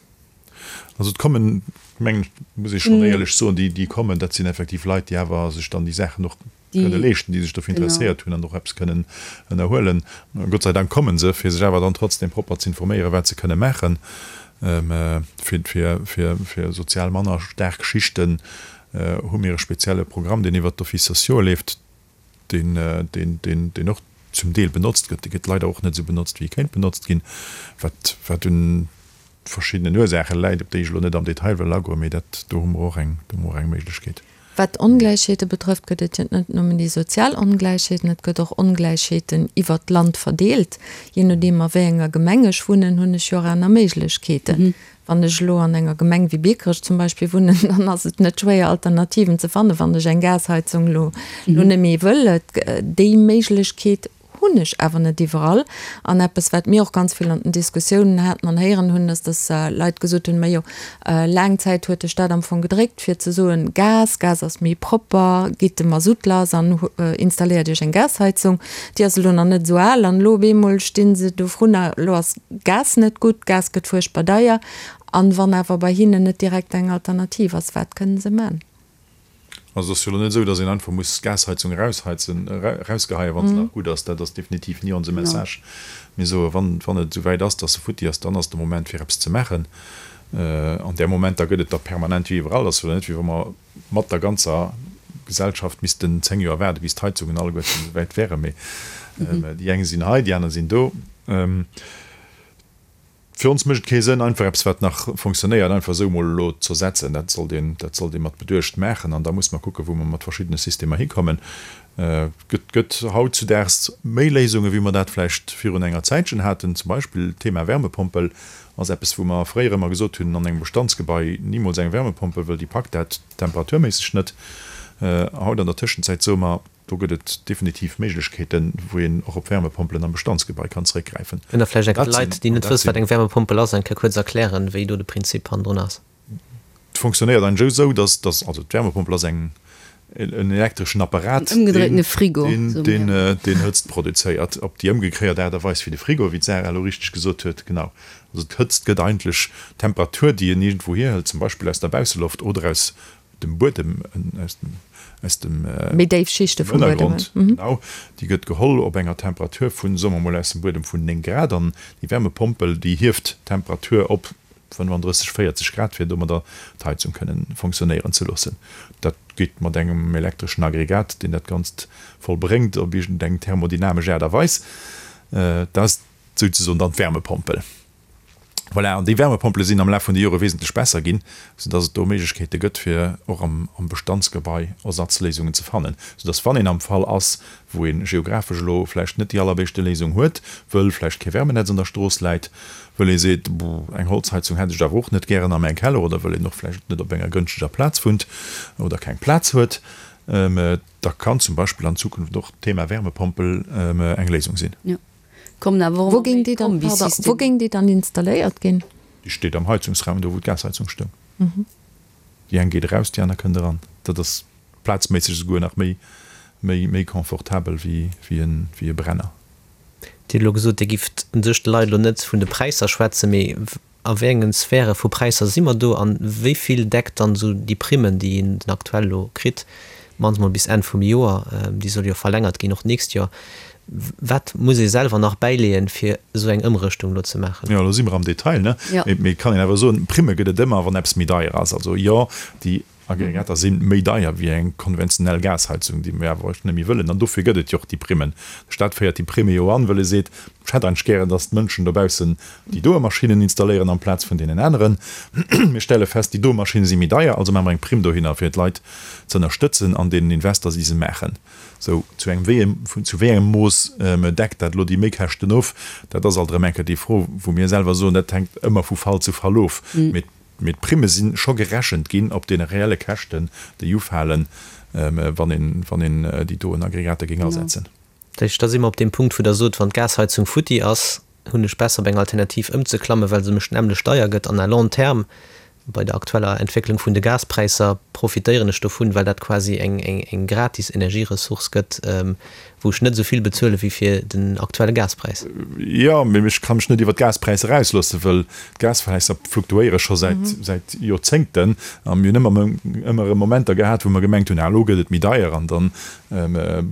Also et kommen, mengen ech, muss ee schonn éierlech soen, déi, déi kommen, dat sinn effektiv Leit, déi awer sech dann déi Saachen och kënne leeschten, déi sech dofir interesséiert hunn an och eppes kënnen ënnerhuelen. Gott sei Dank komme se, fir sech awer dann trotzdem propper ze informéieren, wat se kënne maachen, fir, fir, fir, fir sozial manner staark Schichten hu mir e spezielle Programm, deen iwwert d'Offices sociaux leeft. deen, deen, deen, deen och zum Deel benotzt gëtt, dee gëtt leider och net esou benotzt, wéi e kéint benotzt ginn, wat, wat un verschiddenen Ursaache läit, op déi ech elo net am Detail wëll agoen, mee dat, do hu mer och eng, do hu mer och eng Méiglechkeet. Wat d'Ongläichheete betrëfft, gëtt et jo net nëmmen déi sozial Ongläichheeten, et gëtt och Ongläichheeten iwwert d'Land verdeelt. Jee nodeem a wéi enger Gemeng ech wunnen, hunn ech jo och aner Méiglechkeeten. Wann ech elo an enger Gemeng wéi Biekerech zum Beispill wunnen, dann ass et net schwéier Alternativen ze fannen, wann ech eng Gasheizung elo elo net méi wëll. Déi Méiglechkeet hunn ech awer net iwwerall. An eppes, wat mir och ganz vill an den Diskussiounen haten an héieren hunn, ass, dass Leit gesot hunn, Majo, laang Zäit huet de Staat am Fong gedréckt, fir ze soen, Gas, Gas ass méi propper, gitt de Masutt lass an installéiert Iech eng Gasheizung. Déi ass elo nach net esou al an elo op eemol sti se dovrunner, elo ass Gas net gutt, Gas gëtt fuerchtbar deier. An wann awer bei hinnen net direkt eng Alternativ ass, wat kënnen se man? Also et ass jo elo net esou, datt een einfach muss d'Gasheizung erausheizen, erausgeheien, wa se nach gutt ass. Dat ass definitiv ni onse Message. Mir soen, wann, wann et esou wäit ass, datt se futti ass, dann ass de Moment fir eppes ze maachen. An där Momenter gëtt et der permanent wéi iwwerall. Et ass jo elo net, wéi wa mer mat der ganzer Gesellschaft missten 10 Joer waarden, bis d'Heizungen alleguerten esou wäit wären. Mee déi eng sinn hei, déi aner sinn do. Fir ons mécht et kee Sënn, einfach eppes, wat nach fonctionnéiert, einfach esou emol elo z'ersetzen. Dat sollt een, dat sollt ee mat Beduecht maachen. An da muss mer kucken, wou mer mat verschiddene Systemer hikommen. Et gëtt, gëtt hautzudaags méi Léisungen, wéi mer dat vläicht virun enger Zäitchen haten. Zum Beispill d'Thema Wärmepompel ass eppes, wou mer fréier ëmmer gesot hunn, an engem Bestandsgebai nimools eng Wärmepompel, wëll déi packt dat temperaturméisseg net. Haut an der Tëschenzäit soe mer, Do gëtt et definitiv Méiglechkeeten, wou een och op Wärmepompelen am Bestandsgebai kann zeréckgräifen. Kënnt Der vläicht eng Kéier de Leit, déi net wëssen, wat eng Wärmepompel ass, eng Kéier kuerz erklären, wéi do de Prinzip hannendrun ass? Et fonctionnéiert eigentlech esou, dass, dass, also d'Wärmepompel ass eng, en elektreschen Apparat, En ëmgedréitene Frigo, deen, deen, deen Hëtzt produzéiert, op déi ëmgekréiert Aart a Weis wéi de Frigo, wéi d'Sarah elo richteg gesot huet. Genau. Also d'Hëtzt gëtt eigentlech, d'Temperatur, déi een iergendwou hierhëlt, zum Beispill aus der Bausseloft oder aus dem Buedem, aus dem, aus dem Méi déif Schichte vum Buedem. Ënnergrond, genau, déi gëtt geholl op enger Temperatur vun, soe mer mol, aus dem Buedem vun 9 Grad an déi Wärmepompel, déi hieft d'Temperatur op 35, 40 Grad, fir domadder d'Heizung kënnen fonctionnéieren ze loossen. Dat geet mat engem elektreschen Aggregat, deen dat Ganzt vollbréngt op iergendeng thermodynamesch Aart a Weis. Dat ass souzesoen dann d'Wärmepompel. Voilà, an déi Wärmepompele sinn am Laf vun de Jore wesentlech besser ginn, soudass et do Méiglechkeete gëtt, fir och am Bestandsgebai Ersatzléisungen ze fannen, soudass wann een am Fall ass, wou ee geographesch elo vläicht net déi allerbéischte Léisung huet, wëll vläicht kee Wärmenetz an der Strooss läit, wëll ee seet, eng Holzheizung hätt ech awer och net gären a mäin Keller oder wëll een och vläicht net op enger gënschteger Plaz wunnt oder keng Plaz huet, da kann zum Beispill an Zukunft och d'Thema Wärmepompel eng Léisung sinn. Kommen awer och Wou géing déi dann, pardon, wou géing déi dann installéiert ginn? Déi steet am Heizungsraum, do wou d'Gasheizung stoung. Déi eng geet eraus, déi aner kënnt eran. Dat ass plazméisseg esouguer nach méi, méi, méi confortabel wéi, wéi en, wéi e Brenner. Dir hutt elo gesot, Dir gifft u sech de Leit elo net vun de Präisser schwätzen, mee A wéi engen Sphäre vu Präisser si mer do an wéi vill deckt dann esou déi Primmen, déi een den aktuell elo kritt, mannst mol bis Enn vum Joer, déi soll jo verlängert ginn och d'nächst Joer, wat muss ee selwer nach bäileeën, fir esou eng Ëmrëschtung elo ze maachen? Jo, elo si mer am Detail, ne? Mee et kann een awer soen, Primme gëtt et ëmmer, wann eppes méi deier ass. Also jo, déi Aggregater si méi deier wéi eng konventionell Gasheizung, déi mir awer net méi wëllen. An dofir gëtt et jo och déi Primmen. De Staat féiert déi Primme jo an, wëll e seet, Ech hätt eigentlech gären, datt d'Mënschen dobaussen déi doe Maschinnen installéieren amplaz vun deenen aneren. Mir stelle fest, déi doe Maschinne si méi deier, also maache mer eng Primm dohinner, fir d'Leit ze ënnerstëtzen an deenen Invester, déi se maachen. Sou, zu engem wéi zu wéi engem Mooss deckt dat elo déi Méikäschten of? Dat ass alt erëm eng Kéier déi Fro, wou mir selwer soen, dat hänkt ëmmer vu Fall zu Fall of. Mee Mee d'Primme si scho gerechent ginn op deene reelle Käschten, déi ufalen, wann een, wann een déi doen Aggregater géing asetzen. Dat heescht, da si mer op deem Punkt, wou Der sot, wann d'Gasheizung futti ass, hunn ech besser op eng Alternativ ëmzeklammen, well se mech nämmlecht deier gëtt an à long terme, bei der aktueller Entwécklung vun de Gaspräisser, profitéieren ech dovun, well dat quasi eng gratis Energieressource gëtt, wou ech net esou vill bezuele wéi fir den aktuelle Gaspräis. Jo, mee ech ka mech net iwwer d'Gaspräisser ausloossen, wëll d'Gaspräisser fluktuéiere scho säit säit Joerzéngten a mir hunn ëmmer ëmmer erëm Momenter gehat, wou mer gemengt hunn, ah elo gëtt et méi deier an dann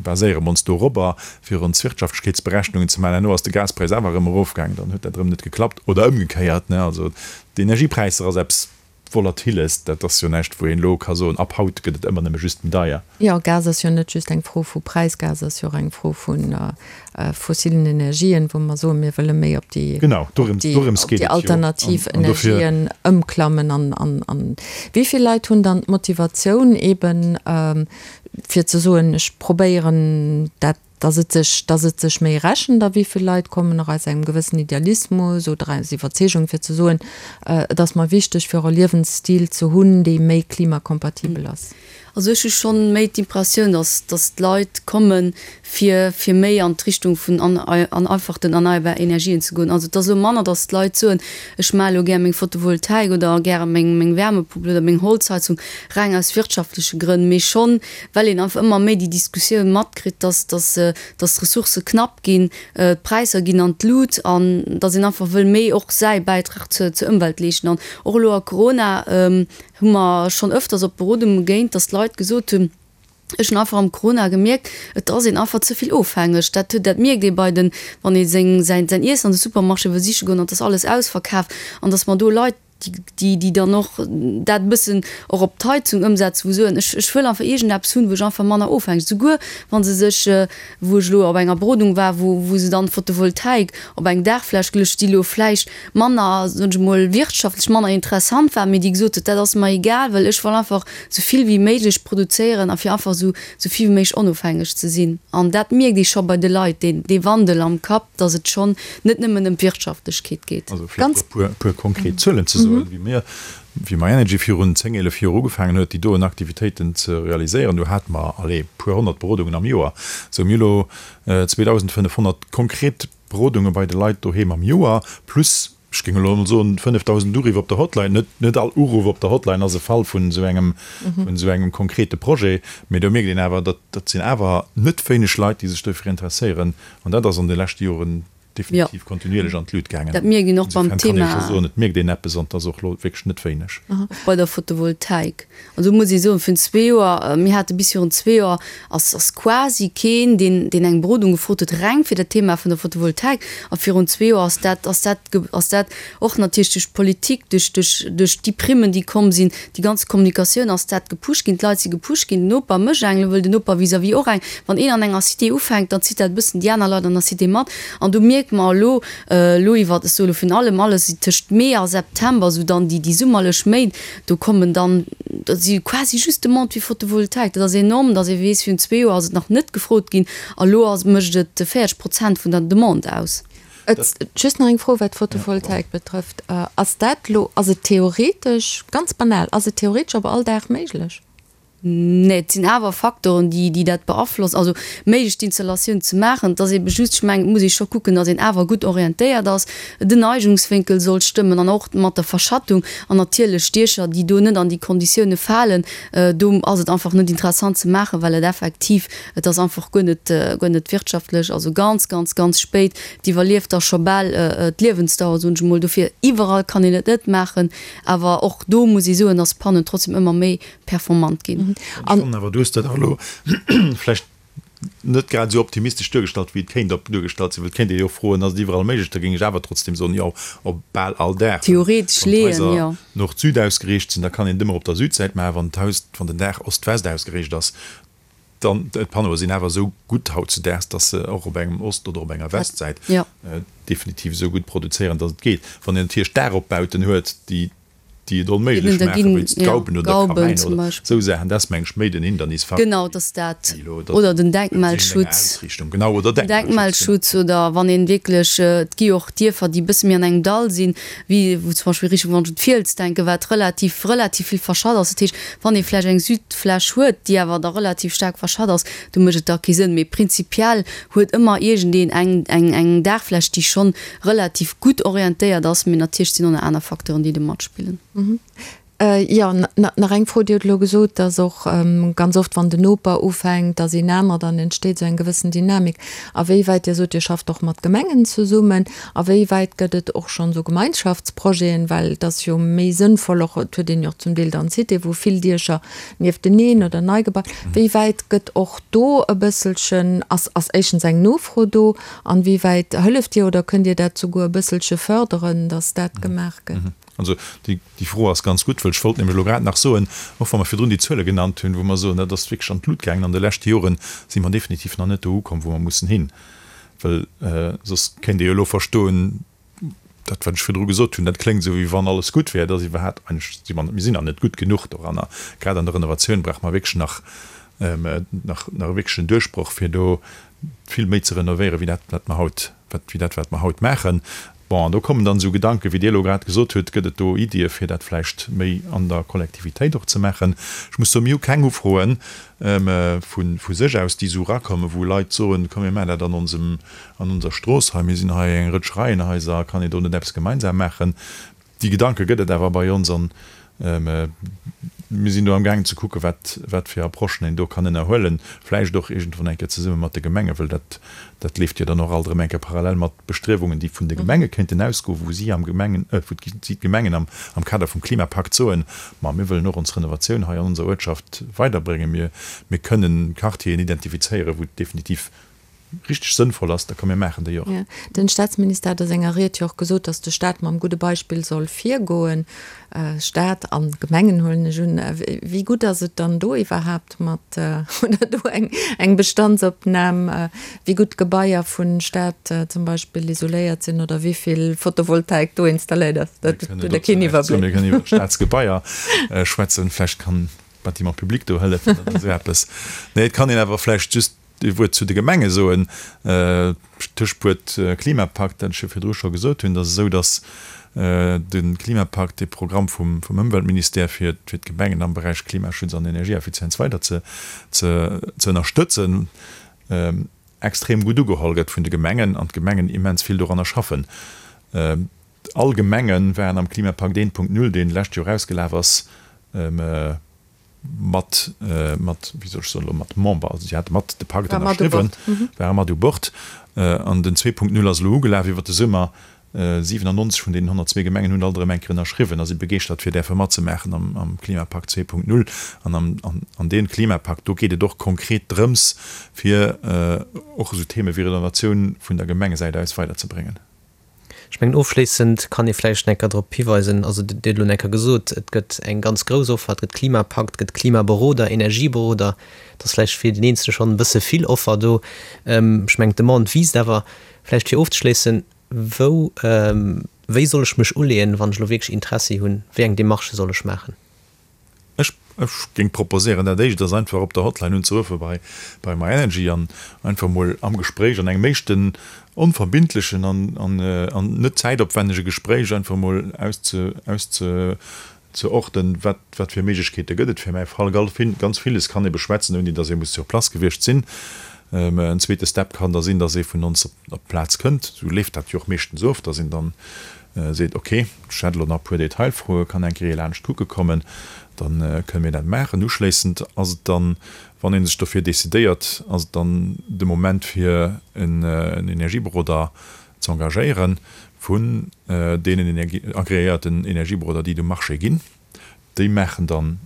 baséiere mer ons dorobber, fir ons Wirtschaftlechkeetsberechnungen ze maachen. Herno ass de Gaspräis awer erëm erofgaangen, dann huet dat erëm net geklappt oder ëmgekéiert, ne. Also d'Energiepräisser ass eppes Volatiles, dat ass jo näischt, wou een elo ka soen, ab haut gëtt et ëmmer nëmme just méi deier. Jo, Gas ass jo net just eng Fro vu Präis, Gas ass jo och eng Fro vu fossilen Energien, wou mer soen, mir wëlle méi op déi, Genau, dorëms, dorëms geet et jo. alternativ Energien ëmklammen. An, an, an wéi vill Leit hunn dann d'Motivatioun eeben, fir ze soen, ech probéieren dat dass et sech, dass et sech méi rechent a wéi vill Leit kommen och aus engem gewëssen Idealismus oder aus Iwwerzeegung fir ze soen, et ass mer wichteg fir och e Liewensstil ze hunn, dee méi klimakompatibel ass. Also ech hu schonn méi d'Impressioun, dass, dass d'Leit komme fir, fir méi an d'Richtung vun an, an einfach den erneierbar Energien ze goen. Also et ass elo manner, dass d'Leit soen, ech maache elo gär meng Photovoltaik oder gäre meng, meng Wärmepompel oder meng Holzheizung reng aus wirtschaftleche Grënn, mee schonn well een einfach ëmmer méi déi Diskussioun matkritt, dass, dass, dass d'Ressourcë knapp ginn, d'Präisser ginn an d'Lut an dass een einfach wëll méi och säi Bäitrag zur, zur Ëmwelt leeschten. An och elo a Corona hu mer schonn ëfters op Berodunge géint, dass d'Leit gesot hunn, Ech hunn einfach am Corona gemierkt, et ass een einfach ze vill ofhängeg. Dat huet, dat mierkt ee bei den, wann ee seng, säin, säin Iessen an de Supermarché wëll siche goen an et ass alles ausverkaf an dass mer do Leit. déi, déi dann och dat e bëssen och op d'Heizung ëmsetzen, wou soen, ech, ech wëll einfach iergendeppes hunn, wou ech einfach manner ofhängeg, souguer wa se sech, wou ech elo op enger Berodung war, wou, wou se dann Photovoltaik op eng Daachfläch geluecht, déi elo vläicht manner, soen ech emol, wirtschaftlech manner interessant war, mee déi gesot huet, dat ass mer egal, well ech wëll einfach esou vill wéi méiglech produzéieren a fir einfach esou, esou vill wéi méiglech onofhängeg ze sinn. An dat mierkt ee scho bei de Leit, deen, dee Wandel am Kapp, dass et schonn net nëmmen ëm d'Wirtschaftlechkeet geet. Also vläicht e puer, puer konkret Zuelen ze soen, wéi mir, wéi myenergy virun 10, 11 Joer ugefaangen huet, déi doen Aktivitéiten ze realiséieren, do hate mer, allez, puer 100 Berodungen am Joer. Sou, mir hu lo 2.500 konkret Berodunge bei de Leit doheem am Joer, plus, ech géing elo emol soen, 5.000 Uriff op der Hotline. Net, net all Uruff op der Hotline ass e Fall vun esou engem, vun esou engem konkrete Projet, mee do mierkt een awer, datt, dat sinn awer net wéineg Leit, déi sech dofir interesséieren. An dat ass an de leschte Joren definitiv kontinuierlech an d'Lut gaangen. Dat mierkt een och beim Insofern kann ee scho soen, et mierkt een eppes an et ass och elo wierklech net wéineg. Och bei der Photovoltaik. An do muss ee soen, virun zwee Joer, mir hate bis virun zwee Joer, ass ass quasi keen, deen deen eng Berodung gefrot huet, reng fir dat Thema vun der Photovoltaik. A virun zwee Joer ass dat ass dat ass dat och natierlech duerch d'Politik, duerch duerch duerch déi Primmen, déi komm sinn, déi ganz Kommunikatioun ass dat gepusht ginn, d'Leit si gepusht ginn, den Noper mécht eng, elo wëll den Noper vis-à-vis och eng. Wann een an enger Cité ufänkt, dann zitt dat e bëssen déi aner Leit an der Cité mat. An do mierke mer elo, elo iwwer, ech soe elo virun allem alles tëscht Mee a September, esou dann déi déi summerlech Méint, Do kommen dann, dat si quasi just Demandë fir Photovoltaik. Dat ass enorm, datt ee weess, virun zwee Joer ass et nach net gefrot ginn a lo ass, mécht et 40 Prozent vun der Demande aus. Just nach eng Fro, wat d'Photovoltaik betrëfft. Ass dat elo, ass et theoretesch, ganz banal, ass et theoretesch op all Daach méiglech? Nee, et sinn awer Faktoren, déi, déi dat beaflossen. Also méiglech d'Installatioun ze maachen. Et ass eebe just, ech mengen, et muss ee scho kucken, datt een awer gutt orientéiert ass. Den Neigungswénkel soll stëmmen an och mat der Verschattung. An natierlech Diecher, déi do net an déi Konditioune falen, do ass et einfach net interessant ze maachen, well et effektiv, et ass einfach guer net, guer net wirtschaftlech. Also ganz, ganz, ganz spéit, et iwwerlieft da scho bal d'Liewensdauer, soen ech emol. Dofir, iwwerall kann een et net maachen. Awer och do muss ee soen, datt d'Pannen trotzdem ëmmer méi performant ginn. Ech fannen awer, du hues dat och elo vläicht net grad esou optimistesch duergestallt, wéi et kéint op duergestallt sinn, well et kéint ee jo froen, Ass et iwwerall méiglech? Da géing ech awer trotzdem soen, Jo, op bal all Dag. Theoretesch Wann leeën, d'Haiser jo. Nord-Süd ausgeriicht sinn, da kann een et ëmmer op der Südsäit maachen. Wann d'Haus, wann den Daach Ost-West ausgeriicht ass, dann, d'Panneaue sinn awer esou gutt hautzudaags, dass se och op engem Ost oder op enger Westsäit definitiv esou gutt produzéieren, dass et geet. Wann een natierlech Daachopbauten huet, déi déi et onméiglech maachen, wéinst Gauben oder Kamäiner oder esou Saachen, dat ass, meng ech, méi den Hindernisfaktor. Genau, dat ass dat. Oder den Denkmalschutz. Genau, oder den Denkmalschutz. Oder wann een wierklech, et gi jo och Dierfer, déi e bësse méi an engem Dall sinn, wéi wou zum Beispill Richtung, wann ech un d'Fiels denken, wat relativ, relativ vill verschatt ass. Dat heescht, wann ee vläicht eng Südfläch huet, déi awer da relativ staark verschatt ass, do mécht et da kee Sënn. Mee prinzipiell huet ëmmer iergendeen eng, eng, eng Daachfläch, déi schonn relativ gutt orientéiert ass, mee natierlech sinn och nach aner Facteuren, déi do matspillen. Jo, nach eng Fro, Dir hutt elo gesot, dass och ganz oft, wann den Noper ufänkt, dass een aner, dann entsteet esou eng gewëssen Dynamik. A wéi wäit, Dir sot, Dir schafft och mat Gemengen zesummen, a wéi wäit gëtt et och schonn esou Gemeinschaftsprojeten, well et ass jo méi sënnvoll och, et huet een jo och zum Deel dann Cité, wou vill Diecher niefteneen oder nei gebaut, wéi wäit gëtt och do e bësselchen, ass ass éischtens eng Nofro do, An wéi wäit hëlleft Dir oder kënnt Dir dat souguer e bësselche förderen, datt dat gemaach gëtt? Also déi Fro ass ganz gutt, well ech wollt nämlech elo grad nach soen, och wa mer virdrun déi Zuele genannt hunn, wou mer soen, dat ass wierklech an d'Lut gaangen an de leschte Joren, si mer definitiv nach net do ukomm, wou mer mussen hin. Well soss kéint ee jo elo verstoen, dat wat ech virdru gesot hunn, dat kléngt esou wéi wann alles gutt wär, dat ass iwwerhaapt eigentlech, si mer, mir sinn nach net gutt genuch doranner. Grad an der Renovatioun brauche mer wierklech nach, nach, nach e wierklechen Duerchbroch, fir do vill méi ze renovéieren, wéi dat wat mer haut, wat, wéi dat wat mer haut maachen. Bon, an do kommen dann esou Gedanken, wéi Dir elo grad gesot hutt, gëtt et do Iddie fir dat vläicht méi an der Kollektivitéit och ze maachen? Ech muss soen, mir hu keng Ufroen vu, vu sech aus, déi esou erakommen, wou Leit soen, komm mir maachen dat an onsem, an onser Strooss hei, mir sinn hei eng Rëtsch Reihenhaiser, kann een do net eppes gemeinsam maachen? Déi Gedanke gëtt et awer bei ons an mir sinn do amgaangen ze kucken, wat, wat fir Approchen een do kann ënnerhuelen, vläicht och iergendwann eng Kéier zesumme mat de Gemengen, well dat, dat leeft jo dann och alt erëm eng Kéier parallel mat Bestriewungen, déi vun de Gemenge kéinten ausgoen, wou si am Gemengen, wou si d'Gemengen am, am Kader vum Klimapakt soen, Ma mir wëllen och ons Renovatioun hei an onser Uertschaft weiderbréngen, mir, mir kënnen Quartieren identifizéieren, wou et definitiv. richteg sënnvoll ass, da komm mir maachen déi och. Jo, den Staatsminister hat a senger Ried jo och gesot, datt de Staat mam gudde Beispill soll virgoen. Staat an Gemengen huelen ech un. Wéi gutt ass et dann do iwwerhaapt mat, oder do eng eng Bestandsopnam, wéi gutt d'Gebaier vun Staat zum Beispill isoléiert sinn oder wéi vill Photovoltaik do installéiert ass? Dat hutt Der keen Iwwerbléck. Mir kënnen iwwer Staatsgebaier schwätzen, vläicht kann d'Bâtiment public do hëllefen oder esou eppes. Nee, et kann een awer vläicht just Ee Wuert zu de Gemenge soen. D'Tëschwuert Klimapakt, dat ech jo virdru scho gesot hunn, et ass esou, datt de Klimapakt, dee Programm vum Ëmweltministère fir d'Gemengen am Beräich Klimaschutz an Energieeffizienz weider ze ënnerstëtzen, extrem gutt ugeholl gëtt vun de Gemengen an d'Gemengen immens vill doranner schaffen. All Gemenge waren am Klimapakt 1.0, deen d'lescht Joer ausgelaf ass, mat, mat, wéi soll ech soen elo, mat Member, also si hate mat de Pakt ënnerschriwwen, ware mat u Bord. An den 2.0 ass elo ugelaf iwwert de Summer. 97 vun deenen 102 Gemengen hunn alt erëm eng Kéier ënnerschriwwen a si begeeschtert fir däerfe matzemaachen am, am Klimapakt 2.0. An am, an, an deem Klimapakt, do geet et och konkret drëms, fir och esou Theme wéi Renovatioun vun der Gemengesäit aus weiderzebréngen. Ech mengen, ofschléissend kann ee vläicht nach eng Kéier drop hiweisen, also Dir hutt elo nach eng Kéier gesot, et gëtt eng ganz grouss Offer, et gëtt Klimapakt, et gëtt Klimaberoder, Energieberoder, et ass vläicht fir den Eenzele schonn e bësse vill Offer do. Ech mengen, d'Demande wiisst awer. Vläicht fir ofzeschléissen, Wou, wéi soll ech mech uleeën, wann ech elo wierklech Interessi hunn? Wéi eng Demarchë soll ech maachen? Ech géing proposéieren, dat éischt ass einfach op der Hotline unzeruffe bei bei myenergy an einfach mol am Gespréich, an engem éischten onverbindlechen an an net zäitopwännege Gespréich einfach mol ausze auszeorten, wat wat fir Méiglechkeete gëtt et fir mäi Fall. Ganz villes kann ee beschwätzen, ouni datt ee muss sur place gewiescht sinn. En zweete Step kann da sinn, datt ee vun ons op d'Plaz kënnt. Esou leeft dat jo och meeschtens of, datt een dann seet, ok, ech hätt elo nach e puer Detailfroen, kann eng Kéier laanscht kucke kommen, da kënne mir dat maachen. Uschléissend ass et dann, wann ee sech dofir decidéiert, ass et dann de Moment fir en Energieberoder ze engagéieren, vun deenen agreéierten Energieberoder, déi et um Marché ginn. Déi maachen dann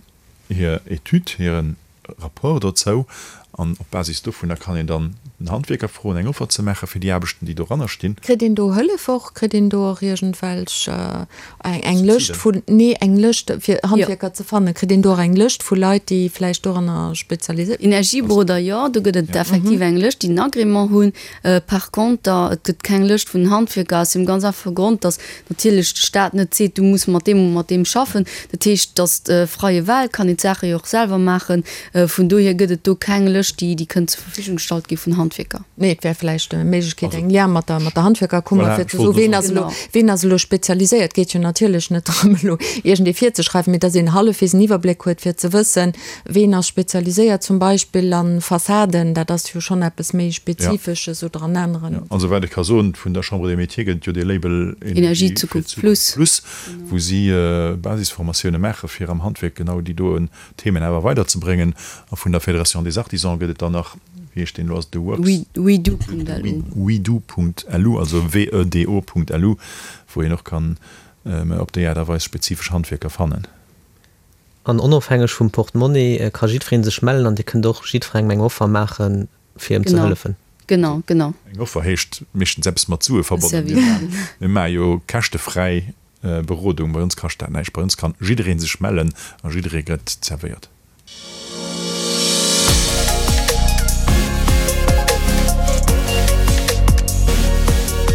hir Etüd, hire Rapport dozou an op Basis dovunner kann een dann den Handwierker froen, eng Offer ze maache fir déi Aarbechten, déi doranner stinn. Kritt een do Hëllef och? Kritt een do och iergendwelch eng Lëscht vun, nee, eng Lëscht fir Handwierker ze fannen? Kritt een do och eng Lëscht vu Leit, déi vläicht doranner spezialiséiert? Energieberoder, jo, do gëtt et effektiv eng Lëscht, déi en Agrément hunn. Par conter, et gëtt keng Lëscht vun Handwierker aus deem ganz einfache Grond, datt natierlech de Staat net seet, du muss mat deem oder mat deem schaffen. Dat heescht, datt freie Wahl, kann een d'Saache jo och selwer maachen. Vun dohier gëtt et do keng Lëscht, déi déi kënnt zur Verfügung gestallt gi vun Handwierker. Nee, et wär vläicht eng Méiglechkeet, eng Lien mat der, mat der Handwierkerkummer, fir ze soen, ween ass elo, ween ass elo spezialiséiert. Et geet jo natierlech net drëm, elo iergendee virzeschreiwen, mee datt een hallefwegs en Iwwerbléck huet, fir ze wëssen, Ween ass spezialiséiert zum Beispill an Fassaden, dat ass jo schonn eppes méi Spezifesches, oder an aneren. Also wat ech ka soen, vun der Chambre des Métiers gëtt et jo dee Label Energie fir d'Zukunft plus, wou si Basisformatioune maache fir am Handwierk genau déi doen Themen awer weiderzebréngen. A vun der Fédération des Artisans gëtt et dann nach, wéi heescht deen elo, ass et de Works? Wedo.lu. Wedo.lu, also W-E-D-O.lu, wou een och kann op déi Aart a Weis spezifesch Handwierker fannen. An onofhängeg vum Portemonnaie ka jiddweree sech mellen an Dir kënnt och jiddwerengem eng Offer maachen, fir em ze hëllefen. Genau, genau. Eng Offer heescht meeschtens eppes mat Sue verbonnen. Mir maache jo käschtefräi Berodung. Bei ons kascht dat näischt. Bei ons kann jidderee sech mellen a jidderee gëtt zerwéiert.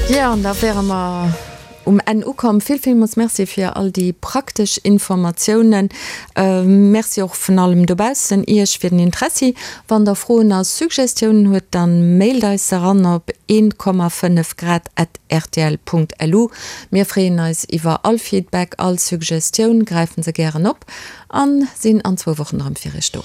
Jo, an da wäre mer Um Enn ukomm. Vill villmools Merci fir all déi praktesch Informatiounen. Merci och vun allem dobaussen Iech fir den Interessi. Wann der Froen a Suggestiounen huet, dann mailt eis se eran op 1,5 grad at rtl.lu. Mir freeën eis iwwer all Feedback, all Suggestioun, gräifen se gären op an sinn an zwou Wochen erëm fir Iech do.